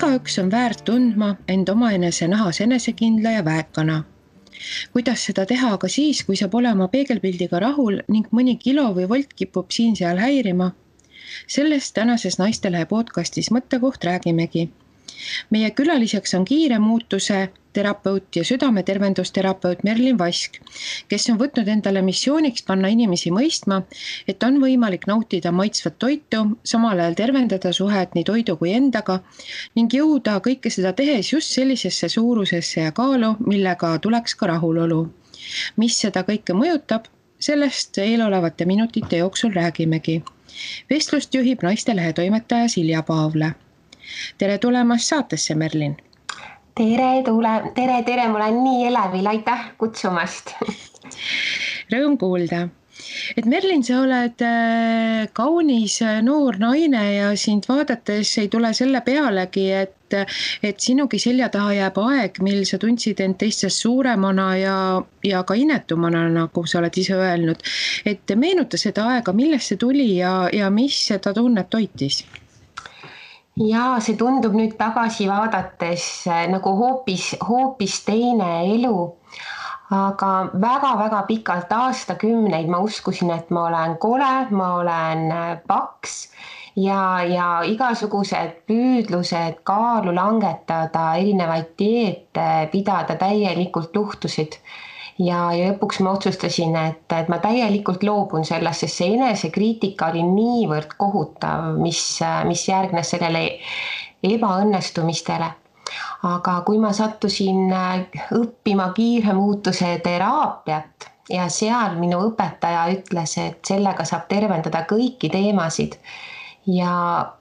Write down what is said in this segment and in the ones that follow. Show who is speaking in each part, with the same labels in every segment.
Speaker 1: Igaüks on väärt tundma end omaenese nahas enesekindla ja väekana. Kuidas seda teha aga siis, kui sa pole oma peegelpildiga rahul ning mõni kilo või volt kipub siin-seal häirima? Sellest tänases Naistelehe podcastis Mõttekoht räägimegi. Meie külaliseks on kiire muutuse terapeut ja südametervendusterapeut Merlin Vask, kes on võtnud endale missiooniks panna inimesi mõistma, et on võimalik nautida maitsvat toitu, samal ajal tervendada suhet nii toidu kui endaga ning jõuda kõike seda tehes just sellisesse suurusesse ja kaalu, millega tuleks ka rahulolu. Mis seda kõike mõjutab, sellest eelolevate minutite jooksul räägimegi. Vestlust juhib Naistelehe toimetaja Silja Paavle. Tere tulemast saatesse, Merlin!
Speaker 2: Tere, mul on nii elevil, aitäh kutsumast!
Speaker 1: Rõõm kuulda! Et Merlin, sa oled kaunis noor naine ja sind vaadates ei tule selle pealegi, et sinugi selja taha jääb aeg, mil sa tundsid end teistest suuremana ja ka inetumana, nagu sa oled ise öelnud. Et meenuta seda aega, millest see tuli ja mis seda tunnet toitis?
Speaker 2: Ja see tundub nüüd tagasi vaadates nagu hoopis teine elu, aga väga-väga pikalt aastakümneid ma uskusin, et ma olen kole, ma olen paks ja igasugused püüdlused kaalu langetada, erinevaid dieete pidada täielikult luhtusid. Ja lõpuks ma otsustasin, et ma täielikult loobun sellest, sest see enesekriitika oli niivõrd kohutav, mis järgnes sellele ebaõnnestumistele. Aga kui ma sattusin õppima kiire muutuse teraapiat ja seal minu õpetaja ütles, et sellega saab tervendada kõiki teemasid, ja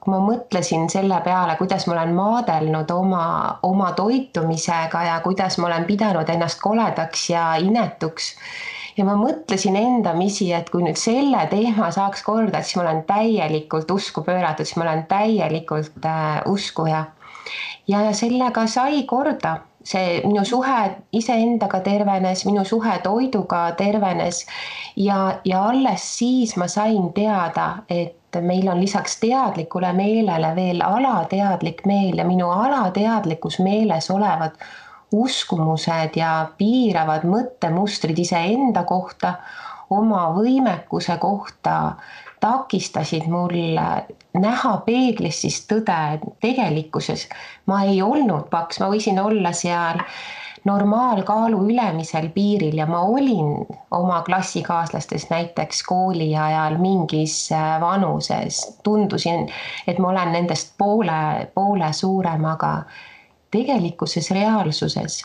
Speaker 2: kui ma mõtlesin selle peale, kuidas ma olen maadelnud oma toitumisega ja kuidas ma olen pidanud ennast koledaks ja inetuks. Ja ma mõtlesin endamisi, et kui nüüd selle teema saaks korda, siis ma olen täielikult usku pööratud, siis ma olen täielikult uskuja. Ja sellega sai korda. See minu suhe iseendaga tervenes, minu suhe toiduga tervenes ja alles siis ma sain teada, et meil on lisaks teadlikule meelele veel alateadlik meel ja minu alateadlikus meeles olevad uskumused ja piiravad mõttemustrid iseenda kohta, oma võimekuse kohta takistasid mul näha peeglis siis tõde tegelikkuses. Ma ei olnud paks, ma võisin olla seal normaalkaalu ülemisel piiril ja ma olin oma klassikaaslastest näiteks kooli ajal mingis vanuses. Tundusin, et ma olen nendest poole suurem, aga tegelikuses reaalsuses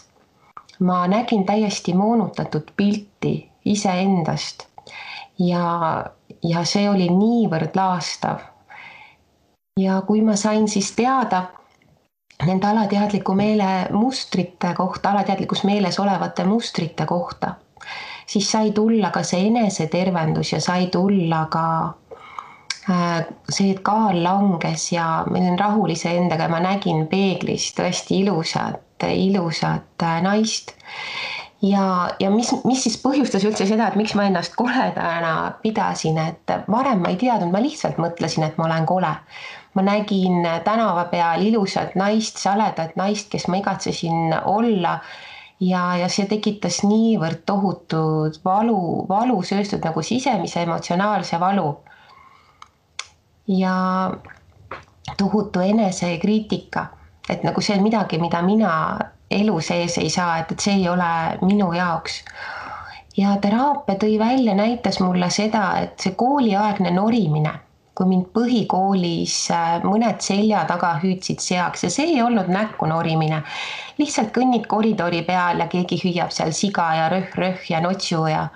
Speaker 2: ma nägin täiesti moonutatud pilti iseendast ja see oli niivõrd laastav. Ja kui ma sain siis teada nende alateadliku meele mustrite kohta, alateadlikus meeles olevate mustrite kohta, siis sai tulla ka see enesetervendus ja sai tulla ka see, et kaal langes ja ma olin rahul iseendaga ja ma nägin peeglis tõesti ilusat naist. Ja mis siis põhjustas üldse seda, et miks ma ennast koledana pidasin, et varem ma ei teadnud, ma lihtsalt mõtlesin, et ma olen kole. Ma nägin tänava peal ilusat naist, saledat naist, kes ma igatsesin olla ja see tekitas niivõrd tohutud valu sööstud nagu sisemise emotsionaalse valu ja tohutu enesekriitika, et nagu see on midagi, mida mina elu sees ei saa, et see ei ole minu jaoks. Ja teraapia tõi välja, näitas mulle seda, et see kooliaegne norimine, kui mind põhikoolis mõned selja taga hüüdsid seaks ja see ei olnud näkku norimine. Lihtsalt kõnnid koridori peal ja keegi hüüab seal siga ja röh ja notsu ja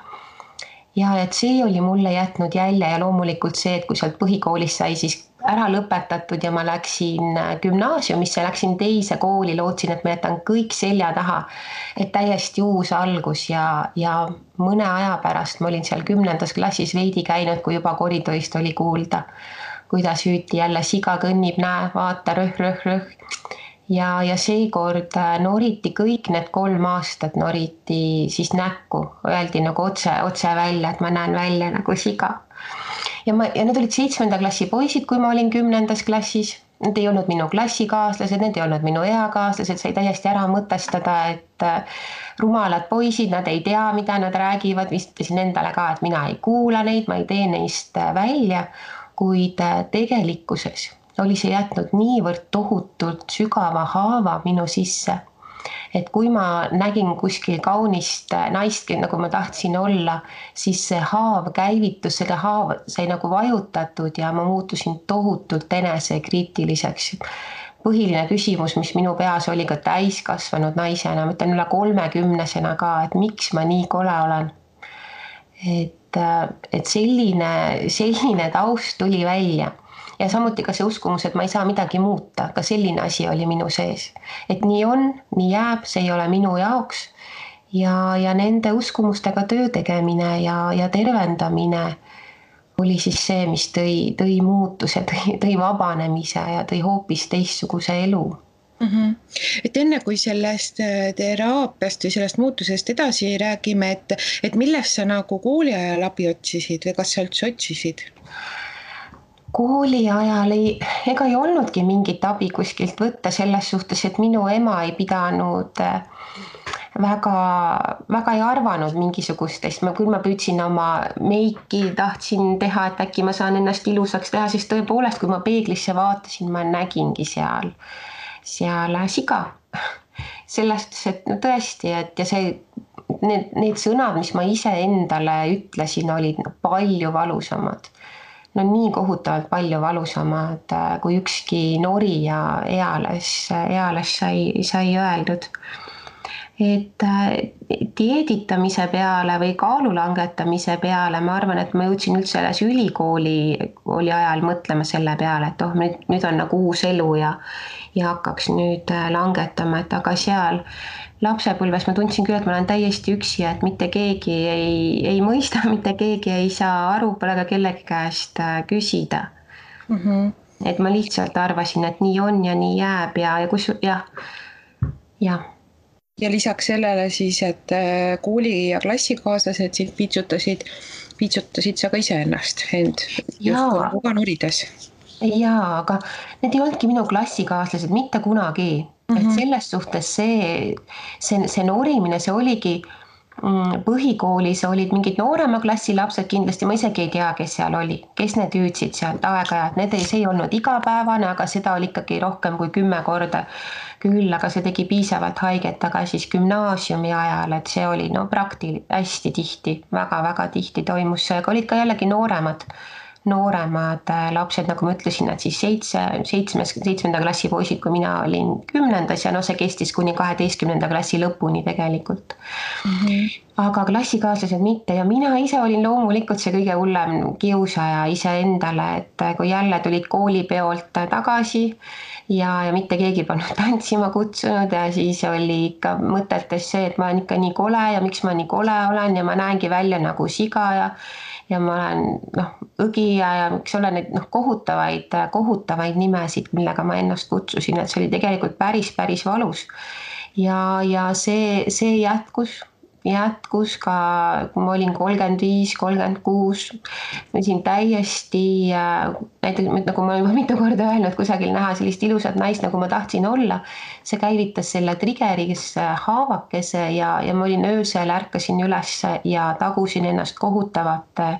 Speaker 2: et see oli mulle jätnud jälje ja loomulikult see, et kui sealt põhikoolis sai siis ära lõpetatud ja ma läksin gümnaasiumisse, läksin teise kooli, lootsin, et ma jätan kõik selja taha, et täiesti uus algus ja mõne aja pärast ma olin seal 10. klassis veidi käinud, kui juba koridorist oli kuulda, kuidas hüüti jälle siga kõnnib, näe, vaata, röh. Ja seekord noriti kõik need 3 aastat noriti siis näkku, öeldi nagu otse välja, et ma näen välja nagu siga. Ja need olid 7. klassi poisid, kui ma olin 10. klassis need ei olnud minu klassikaaslased, need ei olnud minu eakaaslased, sai täiesti ära mõtestada, et rumalad poisid, nad ei tea, mida nad räägivad, vistasin endale ka, et mina ei kuula neid, ma ei tee neist välja, kuid tegelikkuses oli see jätnud niivõrd tohutult sügava haava minu sisse, et kui ma nägin kuskil kaunist naist, nagu ma tahtsin olla, siis see haav käivitus, selle haav sai nagu vajutatud ja ma muutusin tohutult enesekriitiliseks. Põhiline küsimus, mis minu peas oli ka täiskasvanud naisena, ma ütlen üle 30-sena ka, et miks ma nii kole olen. Et selline taust tuli välja. Ja samuti ka see uskumus, et ma ei saa midagi muuta, ka selline asi oli minu sees. Et nii on, nii jääb, see ei ole minu jaoks ja nende uskumustega töö tegemine ja tervendamine oli siis see, mis tõi muutuse, tõi vabanemise ja tõi hoopis teistsuguse elu.
Speaker 1: Et enne kui sellest teraapiast või sellest muutusest edasi räägime, et millest sa nagu kooli ajal abi otsisid või kas sa üldse otsisid?
Speaker 2: Kooli ajal ega ei olnudki mingit abi kuskilt võtta selles suhtes, et minu ema ei pidanud väga ei arvanud mingisugustest, küll ma püüdsin oma meiki, tahtsin teha, et äkki ma saan ennast ilusaks teha, sest tõepoolest, kui ma peeglisse vaatasin, ma nägingi seal siga. Sellest, et no tõesti, et ja need sõnad, mis ma ise endale ütlesin, olid palju valusamad. No nii kohutavalt palju valusamad, kui ükski nori ja eales sai öeldud. Et dieeditamise peale või kaalu langetamise peale, ma arvan, et ma jõudsin üldse selles ülikooli ajal mõtlema selle peale, et nüüd on nagu uus elu ja hakkaks nüüd langetama, et aga seal lapsepõlves ma tundsin küll, et ma olen täiesti üksi, et mitte keegi ei mõista, mitte keegi ei saa aru, pole ka kellegi käest küsida. Et ma lihtsalt arvasin, et nii on ja nii jääb ja.
Speaker 1: Ja lisaks sellele siis, et kooli ja klassikaaslased sind piitsutasid sa ka iseennast justkui ka norides.
Speaker 2: Jaa, aga need ei olnudki minu klassikaaslased mitte kunagi. Et selles suhtes see norimine, see oligi põhikoolis olid mingid noorema klassi lapsed kindlasti, ma isegi ei tea, kes seal oli, kes need hüüdsid sealt aeg-ajalt, see ei olnud igapäevane, aga seda oli ikkagi rohkem kui 10 korda küll, aga see tegi piisavalt haiget, aga siis gümnaasiumi ajal, et see oli hästi tihti, väga-väga tihti toimus see, aga olid ka jällegi nooremad lapsed, nagu ma ütlesin, et siis 7. klassi poisid, kui mina olin 10. ja see kestis kuni 12. klassi lõpuni tegelikult. Aga klassikaaslased mitte ja mina ise olin loomulikult see kõige hullem kiusaja iseendale, et kui jälle tulid koolipeolt tagasi ja mitte keegi polnud tantsima kutsunud ja siis oli ikka mõtetes see, et ma olen ikka nii kole ja miks ma nii kole olen ja ma näengi välja nagu siga ja ma olen õgija ja miks olen neid kohutavaid nimesid, millega ma ennast kutsusin, et see oli tegelikult päris valus. Ja see jätkus ka, kui ma olin 35, 36, ma olin täiesti, näiteks nagu ma juba mitu korda öelnud, kusagil näha sellist ilusat naist, nagu ma tahtsin olla, see käivitas selle triggeris haavakese ja ma olin öösel, ärkasin üles ja tagusin ennast kohutavate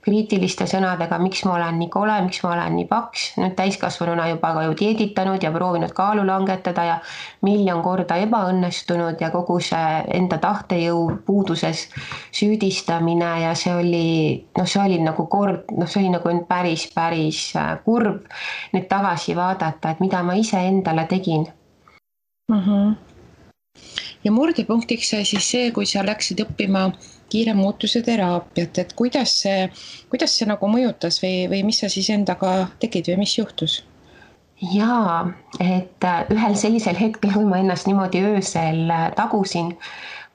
Speaker 2: kriitiliste sõnadega, miks ma olen nii kole, miks ma olen nii paks, nüüd täiskasvanuna juba ka ju dieeditanud ja proovinud kaalu langetada ja 1,000,000 korda ebaõnnestunud ja kogu see enda tahtejõu puuduses süüdistamine ja see oli nagu päris kurb nüüd tagasi vaadata, et mida ma ise endale tegin.
Speaker 1: Ja murdepunktiks sai siis see, kui sa läksid õppima kiire muutuse teraapiat, et kuidas see nagu mõjutas või mis sa siis endaga tegid või mis juhtus?
Speaker 2: Jaa, et ühel sellisel hetkel, kui ma ennast niimoodi öösel tagusin,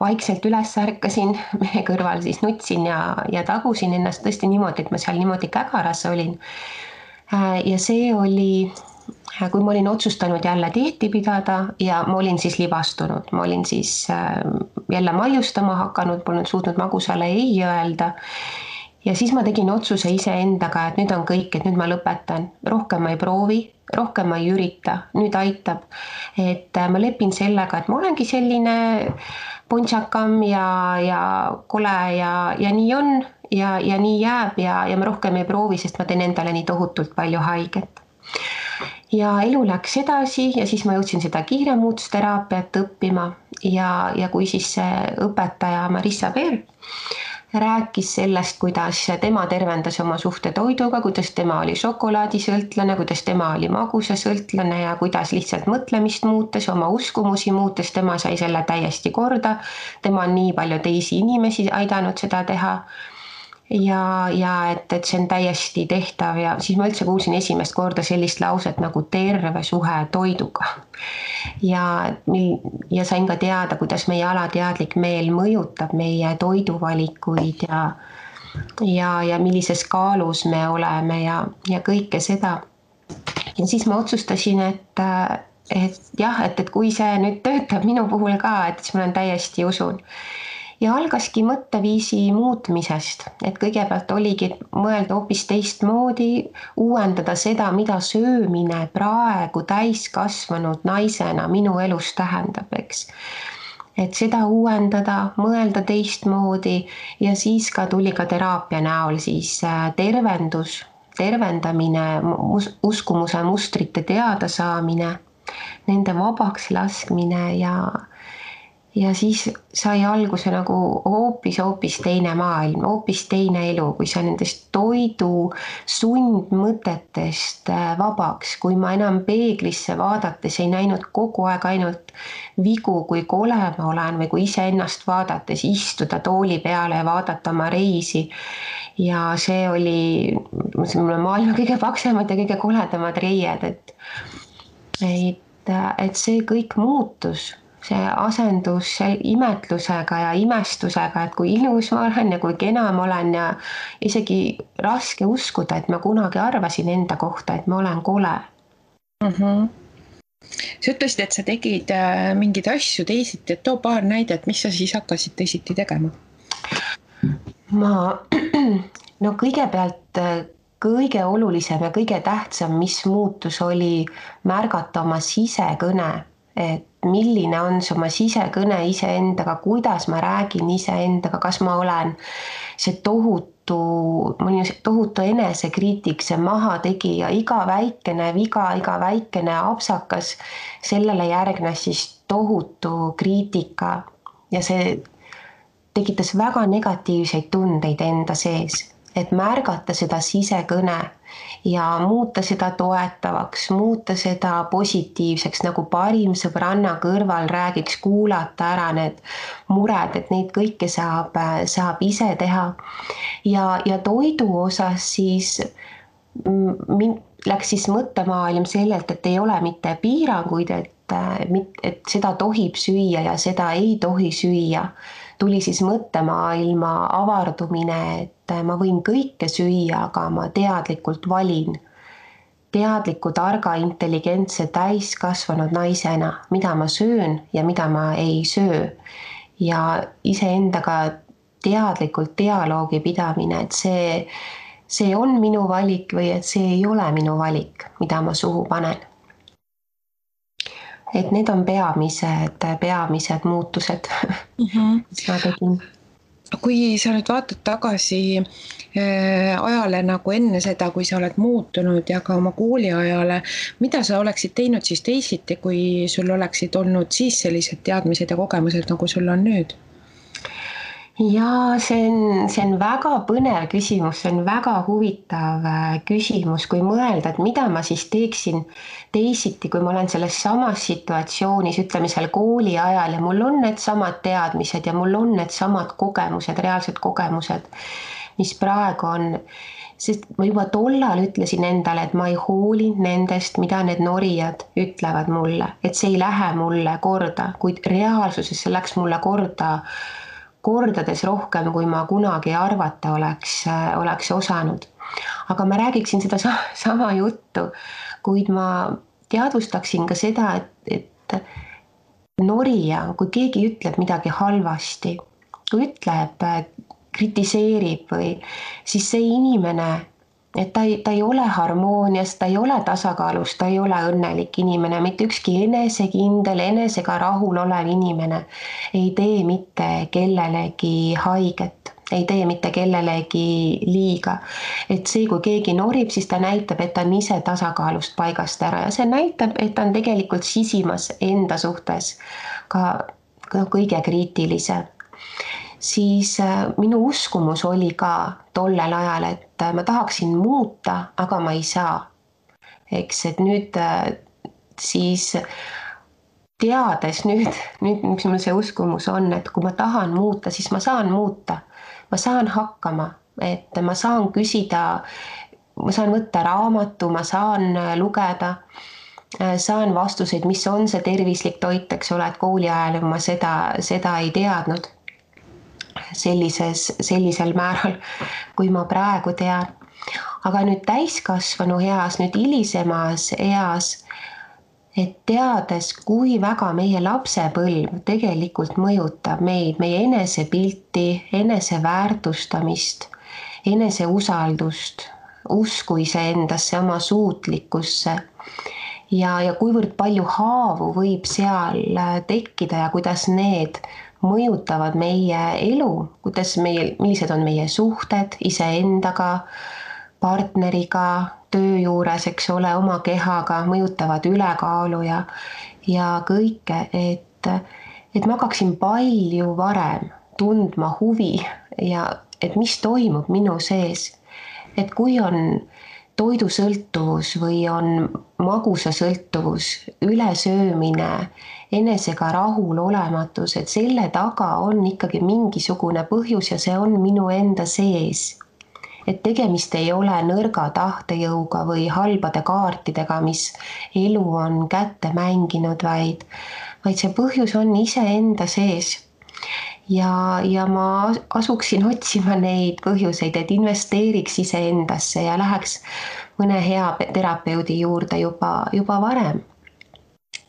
Speaker 2: vaikselt üles ärkasin, mehe kõrval siis nutsin ja tagusin ennast tõesti niimoodi, et ma seal niimoodi kägaras olin. Ja see oli, kui ma olin otsustanud jälle dieeti pidada ja ma olin siis libastunud, ma olin siis jälle maiustama hakanud, polnud suutnud magusale ei öelda ja siis ma tegin otsuse iseendaga, et nüüd on kõik, et nüüd ma lõpetan, rohkem ma ei proovi, rohkem ma ei ürita, nüüd aitab. Et ma lepin sellega, et ma olengi selline puntsakam ja kole ja nii on ja nii jääb ja ma rohkem ei proovi, sest ma teen endale nii tohutult palju haiget. Ja elu läks edasi ja siis ma jõudsin seda kiiremuutusteraapiat õppima ja kui siis see õpetaja Marissa Peer rääkis sellest, kuidas tema tervendas oma suhte toiduga, kuidas tema oli šokolaadisõltlane, kuidas tema oli magusasõltlane ja kuidas lihtsalt mõtlemist muutes, oma uskumusi muutes, tema sai selle täiesti korda. Tema on nii palju teisi inimesi aidanud seda teha. Ja et see on täiesti tehtav ja siis ma üldse kuulsin esimest korda sellist lauset nagu terve suhe toiduga. Ja sain ka teada, kuidas meie alateadlik meel mõjutab meie toiduvalikuid ja millises kaalus me oleme ja kõike seda. Ja siis ma otsustasin, et jah, et kui see nüüd töötab minu puhul ka, et siis ma olen täiesti usun. Ja algaski mõtteviisi muutmisest, et kõigepealt oligi mõelda hoopis teistmoodi, uuendada seda, mida söömine praegu täiskasvanud naisena minu elus tähendab, eks. Et seda uuendada, mõelda teistmoodi ja siis ka tuli ka teraapia näol siis tervendamine, uskumuse mustrite teadasaamine, nende vabaks laskmine ja siis sai alguse nagu hoopis teine maailm, hoopis teine elu, kui sa nendest toidu sundmõtetest vabaks, kui ma enam peeglisse vaadates ei näinud kogu aeg ainult vigu, kui kole ma olen või kui iseennast vaadates istuda tooli peale ja vaadata oma reisi. Ja see oli maailma kõige paksemad ja kõige koledamad reied, et see kõik muutus. See asendus imetlusega ja imestusega, et kui ilus ma olen ja kui kena ma olen ja isegi raske uskuda, et ma kunagi arvasin enda kohta, et ma olen kole.
Speaker 1: Sa ütlesid, et sa tegid mingeid asju teisiti, et too paar näidet, mis sa siis hakkasid teisiti tegema?
Speaker 2: No kõigepealt kõige olulisem ja kõige tähtsam, mis muutus, oli märgata oma sisekõne, et milline on see oma sisekõne iseendaga, kuidas ma räägin iseendaga, kas ma olen see tohutu enesekriitik, see mahategija, iga väikene viga, iga väikene apsakas, sellele järgnes siis tohutu kriitika ja see tekitas väga negatiivseid tundeid enda sees, et märgata seda sisekõne ja muuta seda toetavaks, muuta seda positiivseks, nagu parim sõbranna kõrval räägiks, kuulata ära need mured, et neid kõike saab ise teha. Ja toidu osas siis läks siis mõttemaailm sellelt, et ei ole mitte piiranguid, et seda tohib süüa ja seda ei tohi süüa. Tuli siis mõttemaailma avardumine, et ma võin kõike süüa, aga ma teadlikult valin. Teadliku, targa, intelligentse, täiskasvanud naisena, mida ma söön ja mida ma ei söö. Ja iseendaga teadlikult dialoogi pidamine, et see on minu valik või et see ei ole minu valik, mida ma suhu panen. Et need on peamised muutused, mis ma tegin.
Speaker 1: Kui sa nüüd vaatad tagasi ajale nagu enne seda, kui sa oled muutunud ja ka oma kooliajale, mida sa oleksid teinud siis teisiti, kui sul oleksid olnud siis sellised teadmised ja kogemused, nagu sul on nüüd?
Speaker 2: Ja see on väga põnev küsimus, see on väga huvitav küsimus, kui mõelda, et mida ma siis teeksin teisiti, kui ma olen selles samas situatsioonis, ütleme seal kooli ajal ja mul on need samad teadmised ja mul on need samad kogemused, reaalsed kogemused, mis praegu on. Sest ma juba tollal ütlesin endale, et ma ei hooli nendest, mida need norijad ütlevad mulle, et see ei lähe mulle korda, kuid reaalsuses see läks mulle kordades rohkem, kui ma kunagi arvata oleks osanud. Aga ma räägiksin seda sama juttu, kuid ma teadvustaksin ka seda, et norija, kui keegi ütleb midagi halvasti, kui ütleb kritiseerib või siis see inimene, et ta ei ole harmoonias, ta ei ole tasakaalus, ta ei ole õnnelik inimene, mitte ükski enesekindel, enesega rahul olev inimene ei tee mitte kellelegi haiget, ei tee mitte kellelegi liiga. Et see, kui keegi norib, siis ta näitab, et ta on ise tasakaalust paigast ära ja see näitab, et ta on tegelikult sisimas enda suhtes ka kõige kriitilisem. Siis minu uskumus oli ka tollel ajal, et ma tahaksin muuta, aga ma ei saa. Eks, et nüüd siis teades nüüd, mis mul see uskumus on, et kui ma tahan muuta, siis ma saan muuta. Ma saan hakkama, et ma saan küsida, ma saan võtta raamatu, ma saan lugeda, saan vastuseid, mis on see tervislik toit, eks ole, et kooli ajal ma seda ei teadnud. Sellisel määral, kui ma praegu tean. Aga nüüd täiskasvanu eas, nüüd hilisemas eas, et teades, kui väga meie lapsepõlv tegelikult mõjutab meid, meie enesepilti, eneseväärtustamist, eneseusaldust, usku iseendasse, oma suutlikkusse ja kuivõrd palju haavu võib seal tekkida ja kuidas need mõjutavad meie elu, millised on meie suhted iseendaga, partneriga, töö juures, eks ole, oma kehaga, mõjutavad ülekaalu ja kõike, et ma hakkaksin palju varem tundma huvi ja et mis toimub minu sees. Et kui on toidusõltuvus või on magusasõltuvus, ülesöömine, enesega rahulolematus, et selle taga on ikkagi mingisugune põhjus ja see on minu enda sees. Et tegemist ei ole nõrga tahtejõuga või halbade kaartidega, mis elu on kätte mänginud, vaid see põhjus on iseenda sees. Ja ma asuksin otsima neid põhjuseid, et investeeriks iseendasse ja läheks mõne hea terapeudi juurde juba varem,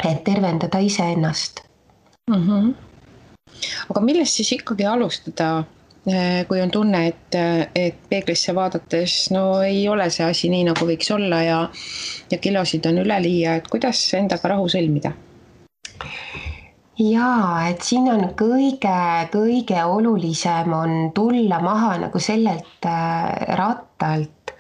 Speaker 2: et tervendada iseennast.
Speaker 1: Aga millest siis ikkagi alustada, kui on tunne, et peeglisse vaadates ei ole see asi nii, nagu võiks olla ja kilosid on üleliia, et kuidas endaga rahu sõlmida?
Speaker 2: Jaa, et siin on kõige olulisem on tulla maha nagu sellelt rattalt,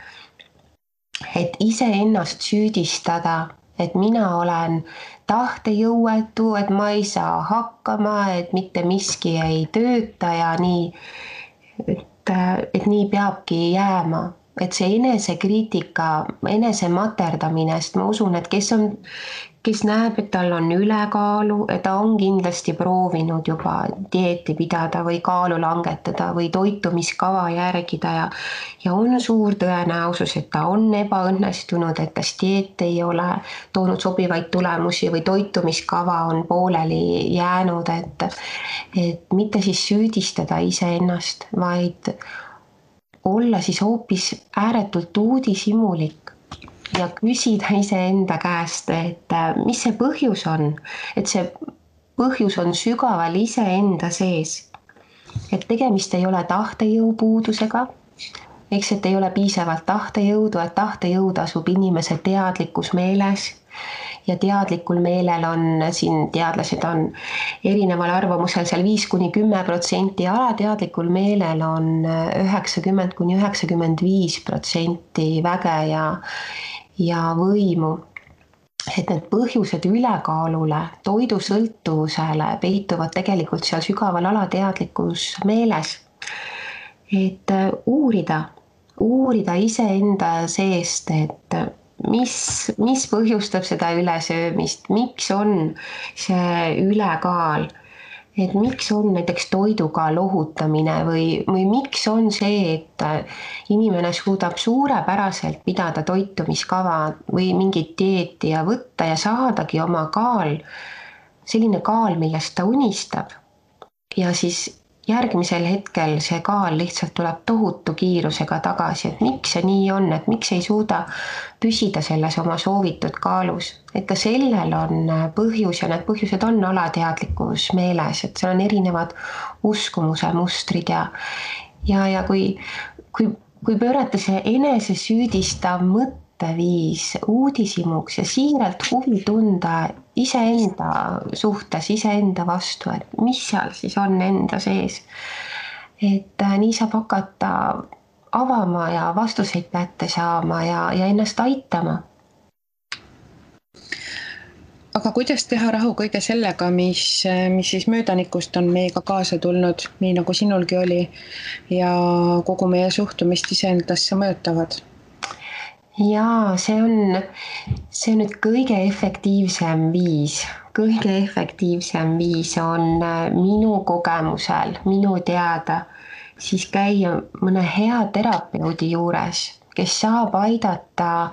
Speaker 2: et iseennast süüdistada, et mina olen tahtejõuetu, et ma ei saa hakkama, et mitte miski ei tööta ja nii, et nii peabki jääma. Et see enesekriitika, enesematerdamine, sest ma usun, et kes näeb, et tal on ülekaalu, et ta on kindlasti proovinud juba dieeti pidada või kaalu langetada või toitumiskava järgida ja on suur tõenäosus, et ta on ebaõnnestunud, et tas dieet ei ole toonud sobivaid tulemusi või toitumiskava on pooleli jäänud, et mitte siis süüdistada iseennast, vaid olla siis hoopis ääretult uudishimulik ja küsida iseenda käest, et mis see põhjus on, et see põhjus on sügaval iseenda sees, et tegemist ei ole tahtejõu puudusega, eks, et ei ole piisavalt tahtejõudu, et tahtejõud asub inimese teadlikus meeles ja teadlikul meelel on, siin teadlased on erineval arvamusel seal 5–10%, alateadlikul meelel on 90–95% väge ja võimu. Et need põhjused ülekaalule, toidusõltuvusele peituvad tegelikult seal sügaval alateadlikus meeles. Et uurida iseenda seest, et mis põhjustab seda ülesöömist, miks on see ülekaal, et miks on näiteks toiduga lohutamine või miks on see, et inimene suudab suurepäraselt pidada toitumiskava või mingit dieeti ja võtta ja saadagi oma kaal, selline kaal, millest ta unistab. Ja siis järgmisel hetkel see kaal lihtsalt tuleb tohutu kiirusega tagasi, et miks see nii on, et miks ei suuda püsida selles oma soovitud kaalus. Et ka sellel on põhjus ja need põhjused on alateadlikus meeles, et seal on erinevad uskumuse mustrid ja kui pöörata see enesesüüdistav mõtteviis uudishimuks ja siiralt huvi tunda iseenda suhtes, iseenda vastu, et mis seal siis on enda sees. Et nii saab hakata avama ja vastuseid kätte saama ja ennast aitama.
Speaker 1: Aga kuidas teha rahu kõige sellega, mis siis möödanikust on meiega kaasa tulnud, nii nagu sinulgi oli, ja kogu meie suhtumist iseendasse mõjutavad?
Speaker 2: Jaa, see on nüüd kõige efektiivsem viis on minu kogemusel, minu teada, siis käia mõne hea terapeudi juures, kes saab aidata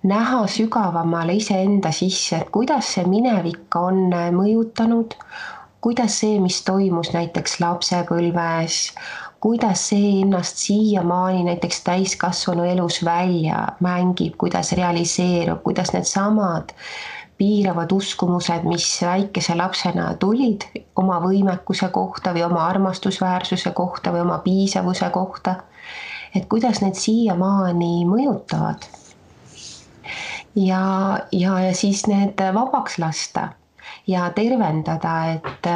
Speaker 2: näha sügavamale iseenda sisse, et kuidas see minevik on mõjutanud, kuidas see, mis toimus näiteks lapsepõlves, kuidas see ennast siiamaani näiteks täiskasvanu elus välja mängib, kuidas realiseerub, kuidas need samad piiravad uskumused, mis väikese lapsena tulid oma võimekuse kohta või oma armastusväärsuse kohta või oma piisavuse kohta, et kuidas need siiamaani mõjutavad. Ja siis need vabaks lasta ja tervendada, et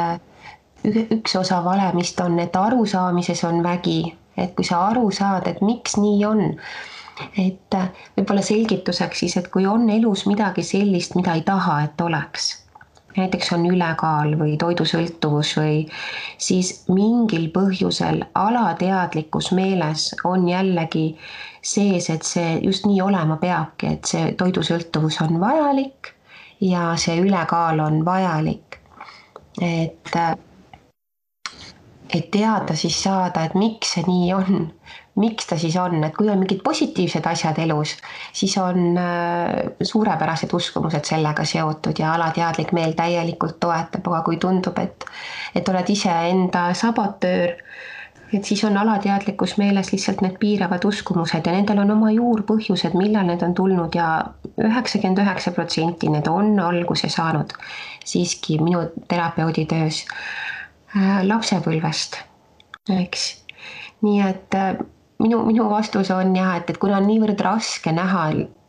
Speaker 2: üks osa valemist on, et arusaamises on vägi, et kui sa aru saad, et miks nii on, et võib-olla selgituseks siis, et kui on elus midagi sellist, mida ei taha, et oleks, näiteks on ülekaal või toidusõltuvus või siis mingil põhjusel alateadlikus meeles on jällegi sees, et see just nii olema peabki, et see toidusõltuvus on vajalik ja see ülekaal on vajalik. Et teada siis saada, et miks see nii on, miks ta siis on, et kui on mingid positiivsed asjad elus, siis on suurepärased uskumused sellega seotud ja alateadlik meel täielikult toetab, aga kui tundub, et oled ise enda sabotöör, et siis on alateadlikus meeles lihtsalt need piiravad uskumused ja nendel on oma juurpõhjused, millal need on tulnud ja 99% need on alguse saanud siiski minu terapeudi töös lapsepõlvest, eks. Nii et minu vastus on jah, et kuna on niivõrd raske näha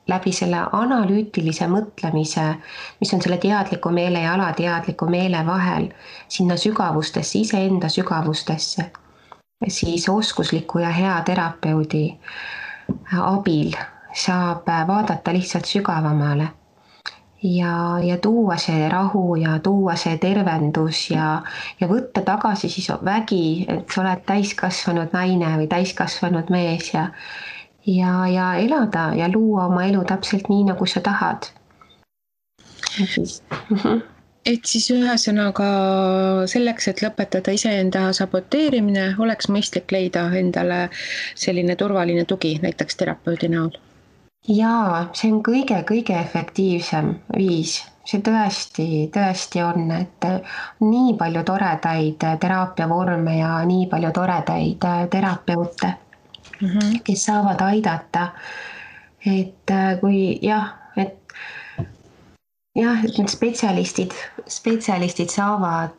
Speaker 2: läbi selle analüütilise mõtlemise, mis on selle teadliku meele ja alateadliku meele vahel, sinna sügavustesse, iseenda sügavustesse, siis oskusliku ja hea terapeudi abil saab vaadata lihtsalt sügavamale ja tuua see rahu ja tuua see tervendus ja võtta tagasi siis vägi, et sa oled täiskasvanud naine või täiskasvanud mees ja elada ja luua oma elu täpselt nii, nagu sa tahad.
Speaker 1: Et siis ühesõnaga selleks, et lõpetada iseenda saboteerimine, oleks mõistlik leida endale selline turvaline tugi, näiteks terapeudi näol.
Speaker 2: Jaa, see on kõige efektiivsem viis. See tõesti on, et nii palju toredaid teraapiavorme ja nii palju toredaid terapeute, kes saavad aidata. Et kui et need spetsialistid saavad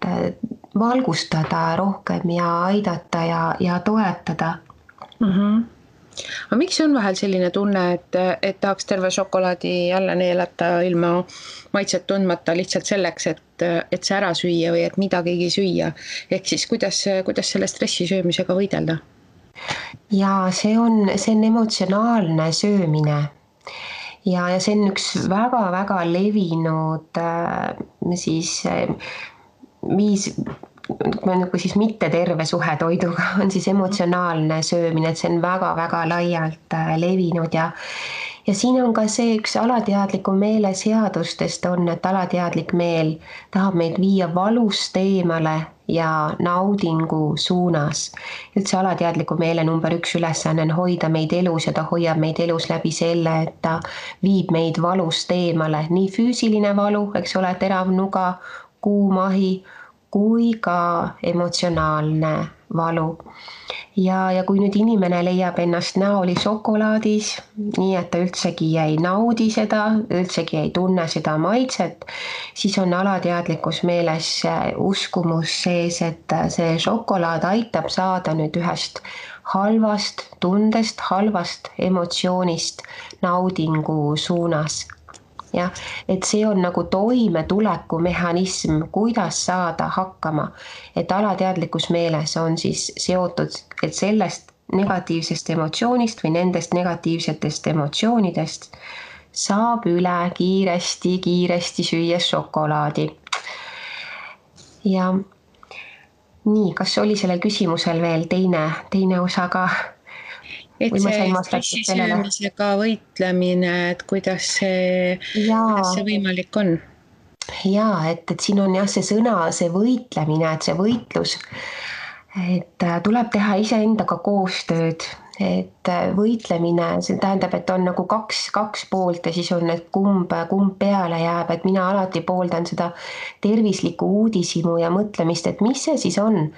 Speaker 2: valgustada rohkem ja aidata ja toetada.
Speaker 1: Aga miks on vahel selline tunne, et tahaks terve šokolaadi jälle neelata ilma maitset tundmata lihtsalt selleks, et see ära süüa või et midagigi süüa? Ehk siis kuidas selle stressi söömisega võidelda?
Speaker 2: Ja see on emotsionaalne söömine ja see on üks väga levinud siis viis, kui siis mitte terve suhe toiduga on siis emotsionaalne söömine, et see on väga laialt levinud ja siin on ka see üks alateadliku meele seadustest on, et alateadlik meel tahab meid viia valust eemale ja naudingu suunas. Üldse alateadliku meele number 1 ülesanne on hoida meid elus ja ta hoiab meid elus läbi selle, et ta viib meid valust eemale. Nii füüsiline valu, eks ole, terav nuga, kuum ahi, kui ka emotsionaalne valu. ja kui nüüd inimene leiab ennast näoli šokolaadis, nii et ta üldsegi ei naudi seda, üldsegi ei tunne seda maitset, siis on alateadlikus meeles uskumus sees, et see šokolaad aitab saada nüüd ühest halvast tundest, halvast emotsioonist naudingu suunas. Jah, et see on nagu toimetuleku mehhanism, kuidas saada hakkama, et alateadlikus meeles on siis seotud, et sellest negatiivsest emotsioonist või nendest negatiivsetest emotsioonidest saab üle kiiresti süües šokolaadi. Ja nii, kas oli sellel küsimusel veel teine osa ka?
Speaker 1: Et see stressisöömisega võitlemine, et kuidas see võimalik on?
Speaker 2: Jaa, et siin on jah see sõna, see võitlemine, et see võitlus, et tuleb teha iseendaga koostööd, et võitlemine, see tähendab, et on nagu kaks poolt ja siis on need kumb peale jääb, et mina alati pooldan seda tervislikku uudishimu ja mõtlemist, et mis see siis on,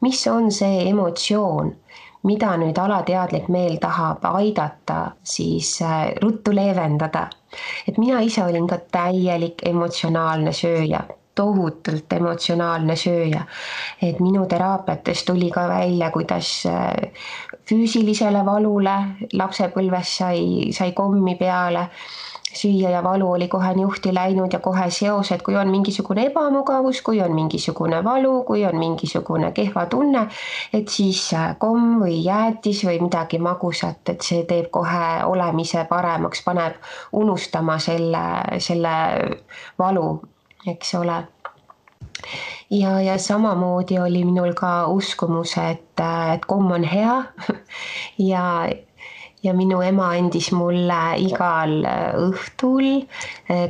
Speaker 2: mis on see emotsioon, mida nüüd alateadlik meel tahab aidata, siis ruttu leevendada. Et mina ise olin ka täielik emotsionaalne sööja, tohutult emotsionaalne sööja. Et minu teraapiates tuli ka välja, kuidas füüsilisele valule lapsepõlves sai kommi peale süüa ja valu oli kohe niuhti läinud ja kohe seosed, kui on mingisugune ebamugavus, kui on mingisugune valu, kui on mingisugune kehva tunne, et siis komm või jäätis või midagi magusat, et see teeb kohe olemise paremaks, paneb unustama selle valu, eks ole. Ja samamoodi oli minul ka uskumus, et komm on hea ja minu ema andis mulle igal õhtul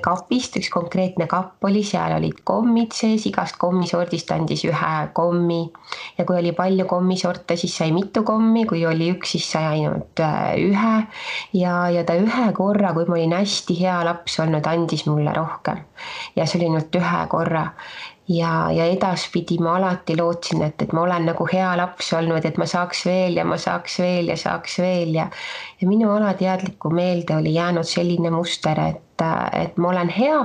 Speaker 2: kapist, üks konkreetne kapp oli, seal olid kommid sees, igast kommisordist andis ühe kommi. Ja kui oli palju kommisorte, siis sai mitu kommi, kui oli üks, siis sai ainult ühe. Ja ta ühe korra, kui ma olin hästi hea laps olnud, andis mulle rohkem. Ja see oli ainult ühe korra. Ja edaspidi ma alati lootsin, et ma olen nagu hea laps olnud, et ma saaks veel ja ma saaks veel ja saaks veel ja minu alateadlikku meelde oli jäänud selline muster, et ma olen hea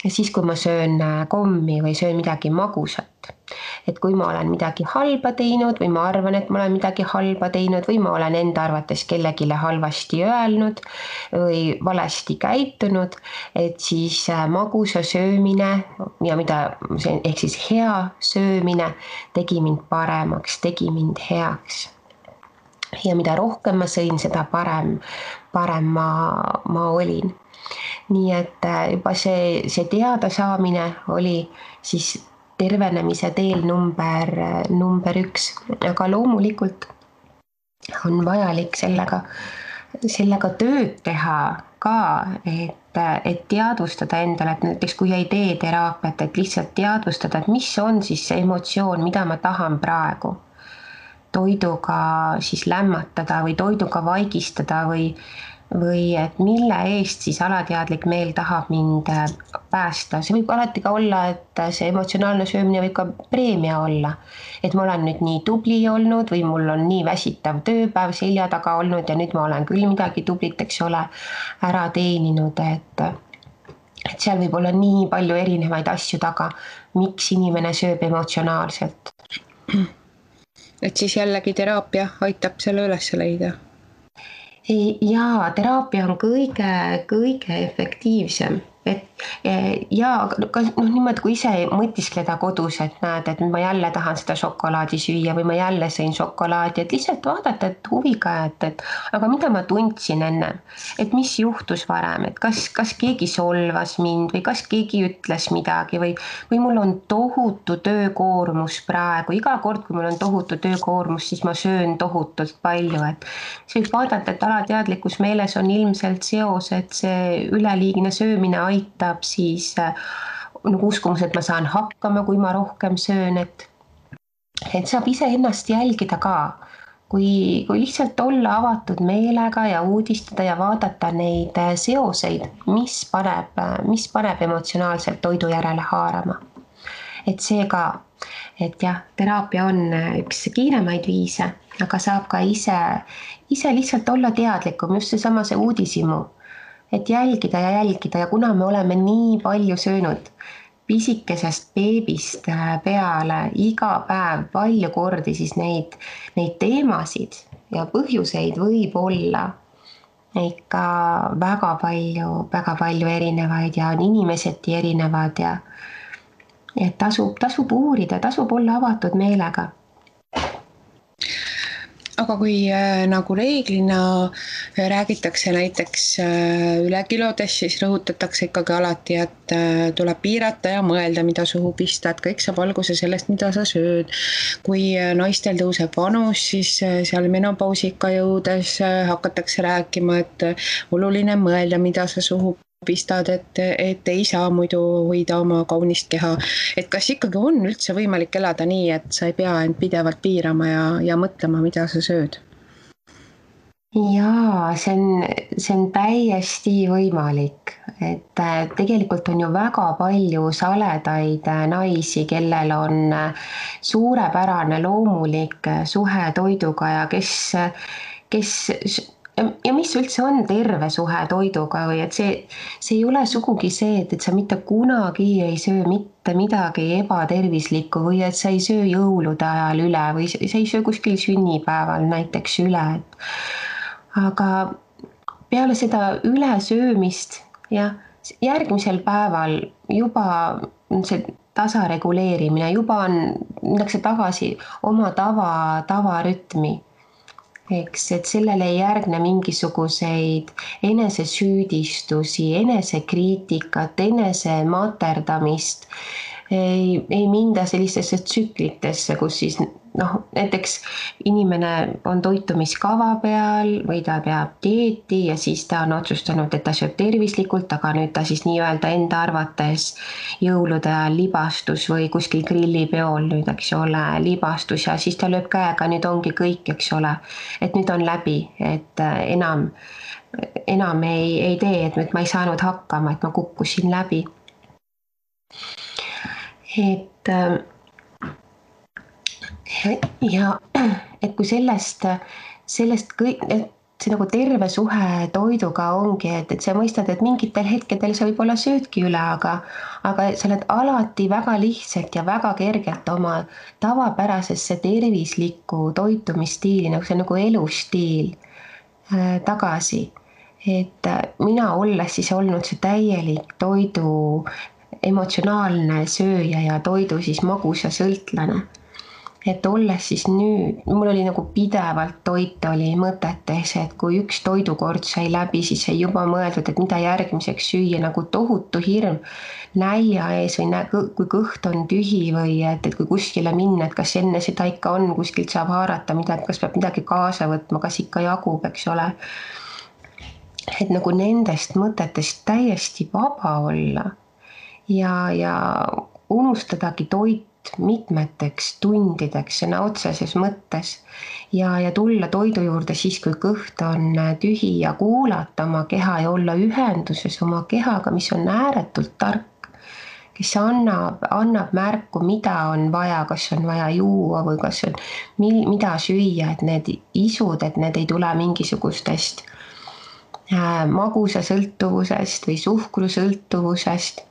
Speaker 2: siis, kui ma söön kommi või söön midagi magusat. Et kui ma olen midagi halba teinud või ma arvan, et ma olen midagi halba teinud või ma olen enda arvates kellegile halvasti öelnud või valesti käitunud, et siis magusa söömine ja ehk siis hea söömine tegi mind paremaks, tegi mind heaks. Ja mida rohkem ma sõin, seda parem ma olin. Nii et juba see teada saamine oli siis tervenemise teel number 1, aga loomulikult on vajalik sellega tööd teha ka, et teadvustada endale, et näiteks kui ei tee teraapiat, et lihtsalt teadvustada, et mis on siis see emotsioon, mida ma tahan praegu toiduga siis lämmatada või toiduga vaigistada või et mille eest siis alateadlik meel tahab mind päästa. See võib alati ka olla, et see emotsionaalne söömine võib ka preemia olla. Et ma olen nüüd nii tubli olnud või mul on nii väsitav tööpäev selja taga olnud ja nüüd ma olen küll midagi tublit, eks ole, ära teeninud, et seal võib olla nii palju erinevaid asju taga, miks inimene sööb emotsionaalselt.
Speaker 1: Et siis jällegi teraapia aitab selle üles leida.
Speaker 2: Jaa, teraapia on kõige efektiivsem. Niimoodi, kui ise mõtiskleda kodus, et näed, et ma jälle tahan seda šokolaadi süüa või ma jälle sõin šokolaadi, et lihtsalt vaadata, et huviga, et aga mida ma tundsin enne, et mis juhtus varem, et kas keegi solvas mind või kas keegi ütles midagi või mul on tohutu töökoormus praegu, iga kord, kui mul on tohutu töökoormus, siis ma söön tohutult palju, et see võib vaadata, et alateadlikus meeles on ilmselt seos, et see üleliigne söömine aitab siis nagu uskumus, et ma saan hakkama, kui ma rohkem söön, et saab iseennast jälgida ka, kui lihtsalt olla avatud meelega ja uudistada ja vaadata neid seoseid, mis paneb emotsionaalselt toidu järele haarama. Et seega et jah, teraapia on üks kiiremaid viise, aga saab ka ise lihtsalt olla teadlikum, just see uudishimu, et jälgida ja kuna me oleme nii palju söönud pisikesest beebist peale iga päev palju kordi, siis neid teemasid ja põhjuseid võib olla ikka väga palju erinevaid ja on inimeseti erinevad ja et tasub uurida, tasub olla avatud meelega.
Speaker 1: Aga kui nagu reeglina räägitakse näiteks ülekilodest, siis rõhutatakse ikkagi alati, et tuleb piirata ja mõelda, mida suhu pista, et kõik saab alguse sellest, mida sa sööd. Kui naistel tõuseb vanus, siis seal menopausiga jõudes hakatakse rääkima, et oluline mõelda, mida sa suhu pistad, et ei saa muidu hoida oma kaunist keha. Et kas ikkagi on üldse võimalik elada nii, et sa ei pea end pidevalt piirama ja mõtlema, mida sa sööd?
Speaker 2: Jaa, see on täiesti võimalik, et tegelikult on ju väga palju saledaid naisi, kellel on suurepärane loomulik suhe toiduga ja kes ja mis üldse on terve suhe toiduga või et see ei ole sugugi see, et sa mitte kunagi ei söö mitte midagi ebatervislikku või et sa ei söö jõulude ajal üle või sa ei söö kuskil sünnipäeval näiteks üle. Aga peale seda ülesöömist ja järgmisel päeval juba see tasareguleerimine, juba minnakse tagasi oma tavarütmi. Eks, et sellele ei järgne mingisuguseid enesesüüdistusi, enesekriitikat, enesematerdamist, ei minda sellistesse tsüklitesse, kus siis näiteks inimene on toitumiskava peal või ta peab dieeti ja siis ta on otsustanud, et ta sööb tervislikult, aga nüüd ta siis nii-öelda enda arvates jõulude ajal libastus või kuskil grillipeol nüüd, eks ole, libastus ja siis ta lööb käega, nüüd ongi kõik, eks ole, et nüüd on läbi, et enam ei tee, et nüüd ma ei saanud hakkama, et ma kukkusin läbi. Et ja et kui sellest kõik, see nagu terve suhe toiduga ongi, et sa mõistad, et mingitel hetkedel sa võib-olla söödki üle, aga sa oled alati väga lihtsalt ja väga kergelt oma tavapärasesse tervislikku toitumisstiili, nagu see nagu elustiil tagasi. Et mina olles siis olnud see täielik toidu emotsionaalne sööja ja toidu siis magusa sõltlane. Et olles siis nüüd, mul oli nagu pidevalt toit oli mõtetes, et kui üks toidukord sai läbi, siis sai juba mõeldud, et mida järgmiseks süüa, nagu tohutu hirm nälja ees või kui kõht on tühi või et kui kuskile minna, et kas enne seda ikka on, kuskilt saab haarata midagi, kas peab midagi kaasa võtma, kas ikka jagub, eks ole. Et nagu nendest mõtetest täiesti vaba olla ja unustadagi toit mitmeteks tundideks sõna otseses mõttes ja tulla toidu juurde siis, kui kõht on tühi ja kuulata oma keha ja olla ühenduses oma kehaga, mis on ääretult tark, kes annab märku, mida on vaja, kas on vaja juua või kas on mida süüa, et need isud, et need ei tule mingisugustest magusa sõltuvusest või suhkrusõltuvusest,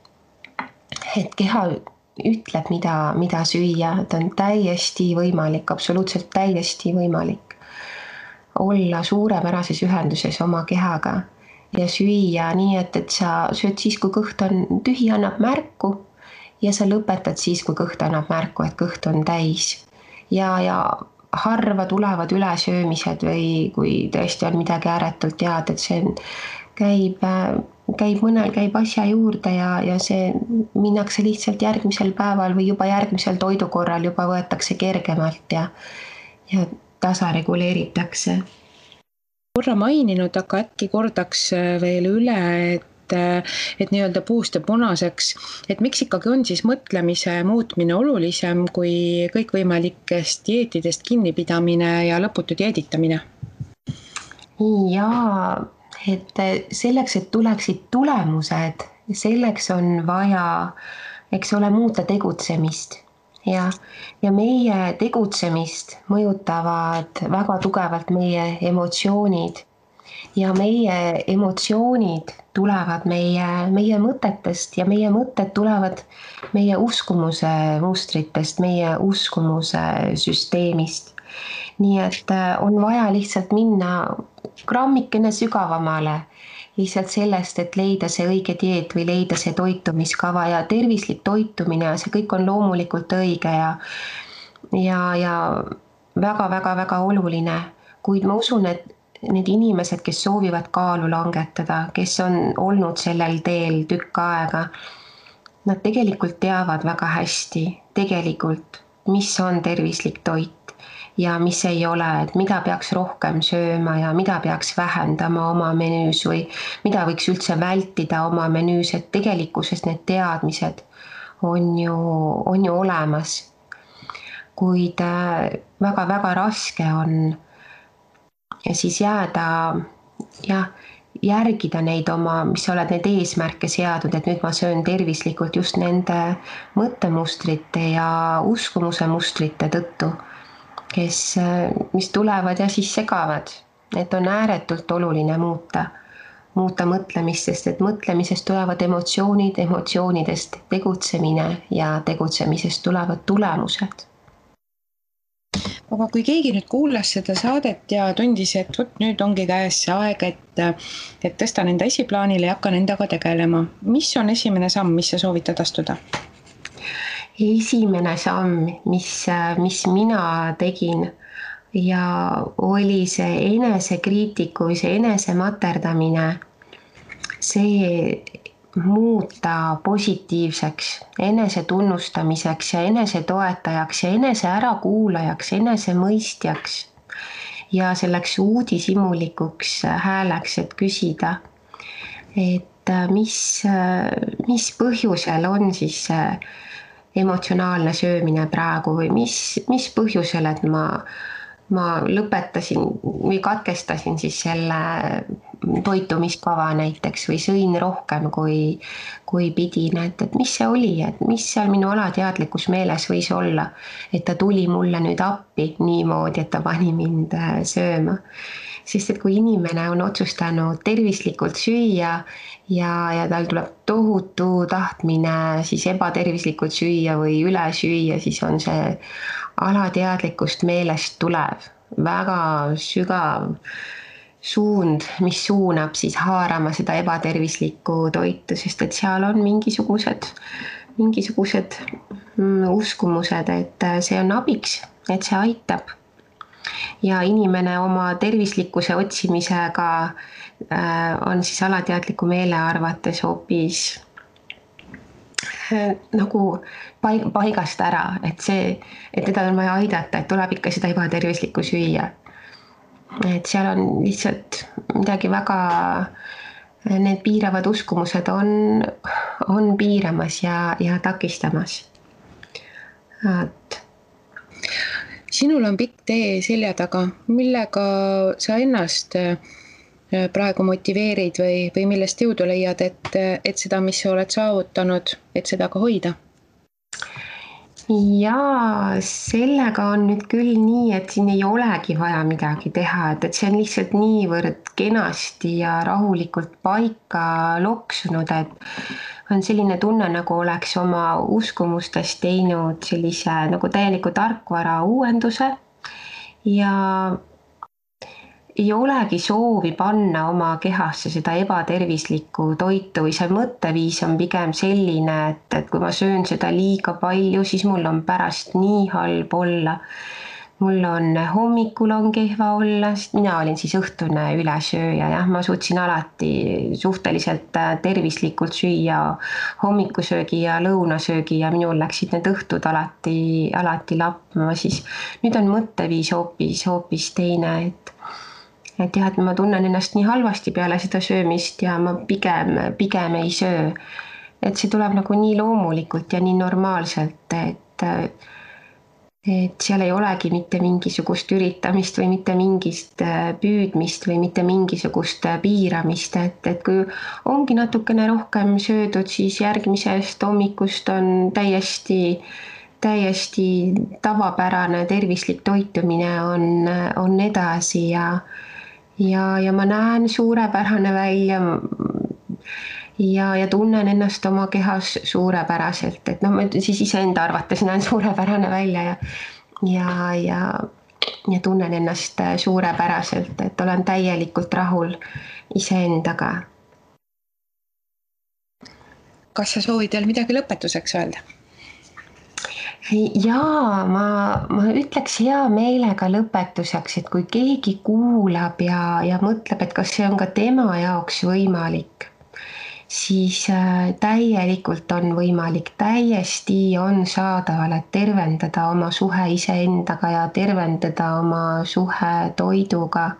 Speaker 2: et keha ütleb, mida süüa, et on täiesti võimalik, absoluutselt täiesti võimalik olla suurepärases ühenduses oma kehaga ja süüa nii, et sa sööd siis, kui kõht on tühi, annab märku ja sa lõpetad siis, kui kõht annab märku, et kõht on täis. Ja harva tulevad ülesöömised või kui tõesti on midagi ääretult head, et see mõnel käib asja juurde ja see minnakse lihtsalt järgmisel päeval või juba järgmisel toidukorral juba võetakse kergemalt ja tasareguleeritakse.
Speaker 1: Korra maininud, aga äkki kordaks veel üle, et nii-öelda puust ja punaseks, et miks ikkagi on siis mõtlemise muutmine olulisem kui kõikvõimalikest dieetidest kinnipidamine ja lõputu dieeditamine?
Speaker 2: Jaa, et selleks, et tuleksid tulemused, selleks on vaja, eks ole, muuta tegutsemist ja meie tegutsemist mõjutavad väga tugevalt meie emotsioonid ja meie emotsioonid tulevad meie mõtetest ja meie mõtted tulevad meie uskumuse mustritest, meie uskumuse süsteemist. Nii et on vaja lihtsalt minna grammikene sügavamale lihtsalt sellest, et leida see õige dieet või leida see toitumiskava ja tervislik toitumine ja see kõik on loomulikult õige ja väga-väga-väga oluline, kuid ma usun, et need inimesed, kes soovivad kaalu langetada, kes on olnud sellel teel tükk aega, nad tegelikult teavad väga hästi tegelikult, mis on tervislik toit ja mis ei ole, et mida peaks rohkem sööma ja mida peaks vähendama oma menüüs või mida võiks üldse vältida oma menüüs, et tegelikkuses need teadmised on ju olemas. Kuid väga-väga raske on ja siis jääda, järgida neid oma, mis sa oled neid eesmärke seadud, et nüüd ma söön tervislikult just nende mõttemustrite ja uskumuse mustrite tõttu, mis tulevad ja siis segavad. Et on ääretult oluline muuta mõtlemist, sest et mõtlemisest tulevad emotsioonid, emotsioonidest tegutsemine ja tegutsemisest tulevad tulemused.
Speaker 1: Aga kui keegi nüüd kuulas seda saadet ja tundis, et võt, nüüd ongi käes see aeg, et tõstan enda esiplaanile ja hakkan endaga tegelema. Mis on esimene samm, mis sa soovitad astuda?
Speaker 2: Esimene samm, mis mina tegin ja oli see enesekriitiku või see enesematerdamine, see muuta positiivseks, enese tunnustamiseks ja enese toetajaks ja enese ärakuulajaks, enese mõistjaks ja selleks uudishimulikuks hääleks, et küsida, et mis põhjusel on siis emotsionaalne söömine praegu või mis põhjusel, et ma lõpetasin või katkestasin siis selle toitumiskava näiteks või sõin rohkem kui pidin, et mis see oli, et mis seal minu alateadlikus meeles võis olla, et ta tuli mulle nüüd appi niimoodi, et ta pani mind sööma. Sest et kui inimene on otsustanud tervislikult süüa ja tal tuleb tohutu tahtmine siis ebatervislikult süüa või üle süüa, siis on see alateadlikust meelest tulev väga sügav suund, mis suunab siis haarama seda ebatervislikku toitu, sest et seal on mingisugused uskumused, et see on abiks, et see aitab. Ja inimene oma tervislikkuse otsimisega on siis alateadliku meele arvates hoopis nagu paigast ära, et teda on vaja aidata, et tuleb ikka seda ebatervislikku süüa. Et seal on lihtsalt midagi väga, need piiravad uskumused on piiramas ja takistamas.
Speaker 1: Sinul on pikk tee selja taga, millega sa ennast praegu motiveerid või millest jõudu leiad, et seda, mis sa oled saavutanud, et seda ka hoida?
Speaker 2: Ja sellega on nüüd küll nii, et siin ei olegi vaja midagi teha, et see on lihtsalt niivõrd kenasti ja rahulikult paika loksunud, et on selline tunne, nagu oleks oma uskumustest teinud sellise nagu täieliku tarkvara uuenduse ja ei olegi soovi panna oma kehasse seda ebatervislikku toitu või see mõtteviis on pigem selline, et kui ma söön seda liiga palju, siis mul on pärast nii halb olla. Mul on hommikul on kehva olla, sest mina olin siis õhtune ülesööja, jah, ma suutsin alati suhteliselt tervislikult süüa hommikusöögi ja lõunasöögi ja minul läksid need õhtud alati lappama, siis nüüd on mõtteviis hoopis teine, et jah, et ma tunnen ennast nii halvasti peale seda söömist ja ma pigem ei söö. Et see tuleb nagu nii loomulikult ja nii normaalselt, et seal ei olegi mitte mingisugust üritamist või mitte mingist püüdmist või mitte mingisugust piiramist, et kui ongi natukene rohkem söödud, siis järgmisest hommikust on täiesti täiesti tavapärane tervislik toitumine on edasi ja ma näen suurepärane välja ja tunnen ennast oma kehas suurepäraselt, et noh, ma siis iseenda arvates näen suurepärane välja ja tunnen ennast suurepäraselt, et olen täielikult rahul iseendaga.
Speaker 1: Kas sa soovid veel midagi lõpetuseks öelda?
Speaker 2: Jaa, ma ütleks hea meelega lõpetuseks, et kui keegi kuulab ja mõtleb, et kas see on ka tema jaoks võimalik, siis täielikult on võimalik, täiesti on saadaval, et tervendada oma suhe iseendaga ja tervendada oma suhe toiduga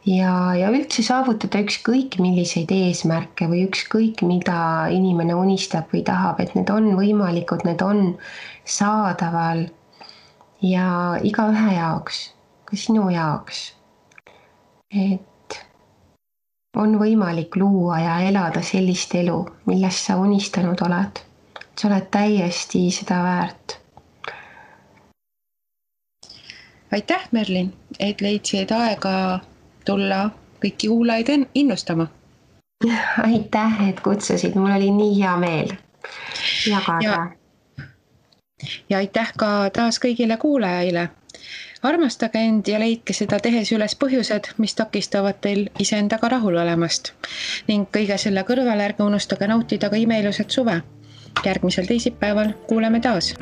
Speaker 2: ja üldse saavutada ükskõik milliseid eesmärke või ükskõik mida inimene unistab või tahab, et need on võimalikud, need on saadaval ja igaühe jaoks, ka sinu jaoks. Et on võimalik luua ja elada sellist elu, millest sa unistanud oled. Sa oled täiesti seda väärt.
Speaker 1: Aitäh, Merlin, et leidsid aega tulla kõiki kuulajaid innustama.
Speaker 2: Aitäh, et kutsusid, mul oli nii hea meel jagada.
Speaker 1: Ja aitäh ka taas kõigile kuulajaile. Armastage end ja leidke seda tehes üles põhjused, mis takistavad teil iseendaga rahul olemast. Ning kõige selle kõrval ärge unustage nautida ka imeilusat suve. Järgmisel teisipäeval kuuleme taas.